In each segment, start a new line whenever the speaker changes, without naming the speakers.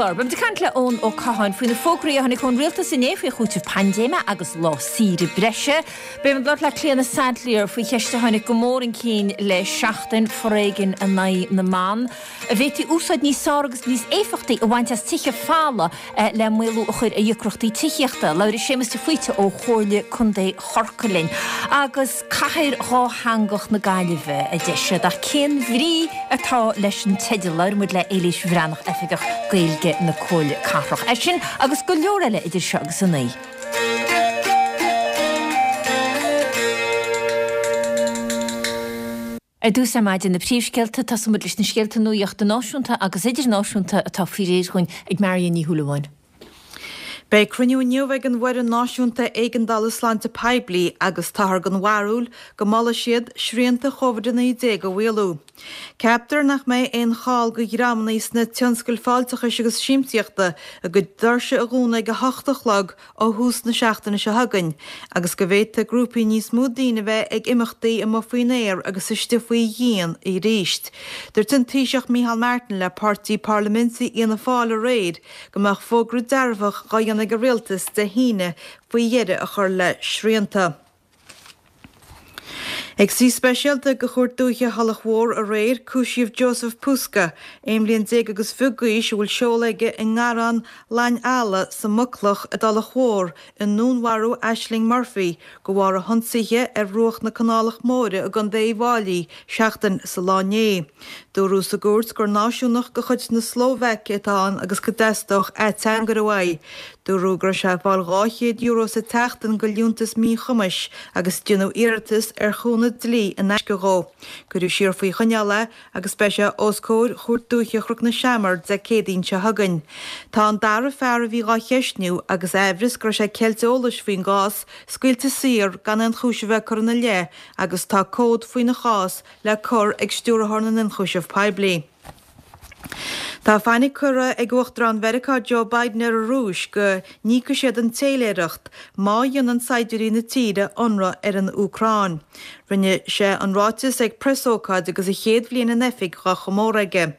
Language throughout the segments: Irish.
chlár, beimid ag caint le Eoin Ó Catháin faoi na fógraí a tháinig ón rialtas inné faoi chúiteamh paindéime agus lá saoire breise. Beimid ag labhairt le Clíona Saidléar faoi cheist a tháinig go mór chun cinn le seachtain, foréigean in aghaidh na mban. An bhféadfaí úsáid níos fearr agus níos éifeachtaí a bhaint as tithe folamh le maolú a chur ar dheacrachtaí tithíochta. Labhróidh Séamus de Faoite ó Chomhairle Contae Chorcaí linn. Agus Cathair Dhátheangach na Gaillimhe, a deir siad, ach cén bhrí atá leis an teideal? Labhróidh muid le Éilís Bhreathnach, Oifigeach Gaeilge na Comhairle Cathrach. É sin agus go leor eile idir seo agus a 9. Ar dtús ar maidin, na príomhscéalta, tosóidh muid leis na scéalta nuachta náisiúnta agus idirnáisiúnta atá faoi réir dhúinn ag Marion Ní Shúilleabháin.
Beidh cruinniú inniu ag an bhFoireann Náisiúnta Éigeandála Sláinte Poiblí agus táthar den bharúil go molfaidh siad srianta Covid-19 a mhaolú. Ceaptar nach mbeidh aon chall do dhreamanna sna tionscail fáilteachais agus siamsaíochta a gcuid doirse a dhúnadh ag 8 a chlog ó thús na seachtaine seo chugainn agus go bhféadfaidh grúpaí níos mó daoine a bheith ag imeachtaí amuigh faoin aer agus istigh faoi dhíon arís. Dúirt an Taoiseach Micheál Martin le páirtí parlaiminte Fhianna Fáil aréir go mbeadh fógra dearfach dhá dhéanamh ag an rialtas Dé hAoine faoi dheireadh a chur le srianta. Ag suí speisialta de Chúirt Dúiche Thulach Mhór aréir, cúisíodh Joseph Puska, 11 bliain agus fiche d'aois, a bhfuil seoladh aige i nGarrán Lainn Eala sa Mucloch i dTulach Mhór, i ndúnmharú Ashling Murphy de bharr a hionsaithe ar bhruach na Canálach Móire i gContae Uíbh Fháilí seachtain sa lá inné. Dúradh sa gcúirt gur náisiúnach de chuid na Slóvaice atá ann agus go dteastódh ateangaire uaidh. Dúradh go raibh sé ag fáil €200 sa tseachtain de liúntas míchumais agus déanadh iarratas ar chúnamh dlí in aisce dhó. Cuireadh siar faoi choinneáil é agus beidh sé os comhair Chúirt Dúiche Chnoc na Seamar Dé Céadaoin seo chugainn. Tá an dara fear a bhí dhá cheistniú agus aimhreas go raibh sé ag ceilt eolais faoin gcás scaoilte saor gan aon chúis a bheith curtha ina leith agus tá comhad faoina chás le cur ag Stiúrthóir na nIonchúiseamh Poiblí. Tá fainic curtha ag Uachtarán Mheiriceá Joe Biden ar an Rúis go n-íocfaidh siad an téiléireacht má dhéanann saighdiúirí na tíre ionradh ar an Úcráin. Rinne sé an ráiteas ag preasócáid agus a chéad bhliain in oifig dhá chomóradh aige.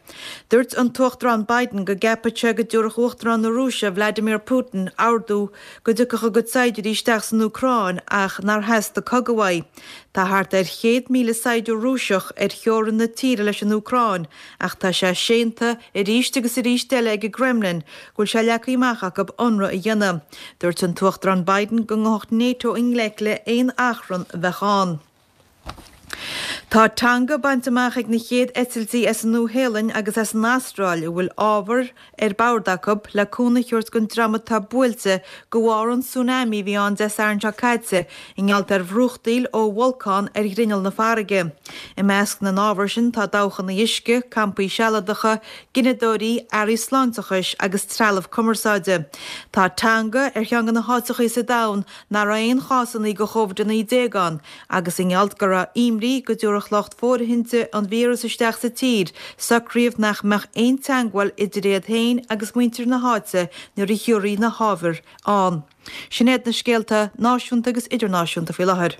Dúirt an tUachtarán Biden go gceapann sé go dtabharfadh Uachtarán na Rúise Vladimir Putin ordú go dtiocfadh a gcuid saighdiúirí isteach san Úcráin ach nár theastaigh cogadh uaidh. Tá thart ar 100,000 saighdiúir Rúiseach ar theorainn na tíre leis an Úcráin ach tá sé séanta arís agus arís eile ag an gCremlin go bhfuil sé leagtha amach acu ionradh a dhéanamh. Dúirt an tUachtarán Biden go ngabhfadh NATO i ngleic le haon achrann a bheadh ann. Tá Tonga bainte amach ag na chéad eitiltí as an Nua-Shéalainn agus as an Astráil a bhfuil ábhar ar bord acu le cúnamh a thabhairt don dream atá buailte de bharr an tsunami a bhí ann Dé Sathairn seo caite i ngeall ar bhrúchtaíl ó bholcán ar ghrinneall na farraige. I measc na n-ábhar sin tá dabhchanna uisce, campaí sealadacha, gineadóirí, earraí sláinteachais agus trealamh cumarsáide. Tá Tonga ar cheann de na háiteachaí sa domhan nach raibh aon chásannaí de Covid-19 ann agus i ngeall go raibh imní go dtabharfadh lucht fóirithinte an víreas isteach sa tír, socraíodh nach mbeadh aon teagmháil idir iad féin agus muintir na háite nuair a thiúrfaí na hábhair ann. Sin iad na scéalta náisiúnta agus idirnáisiúnta faoi láthair.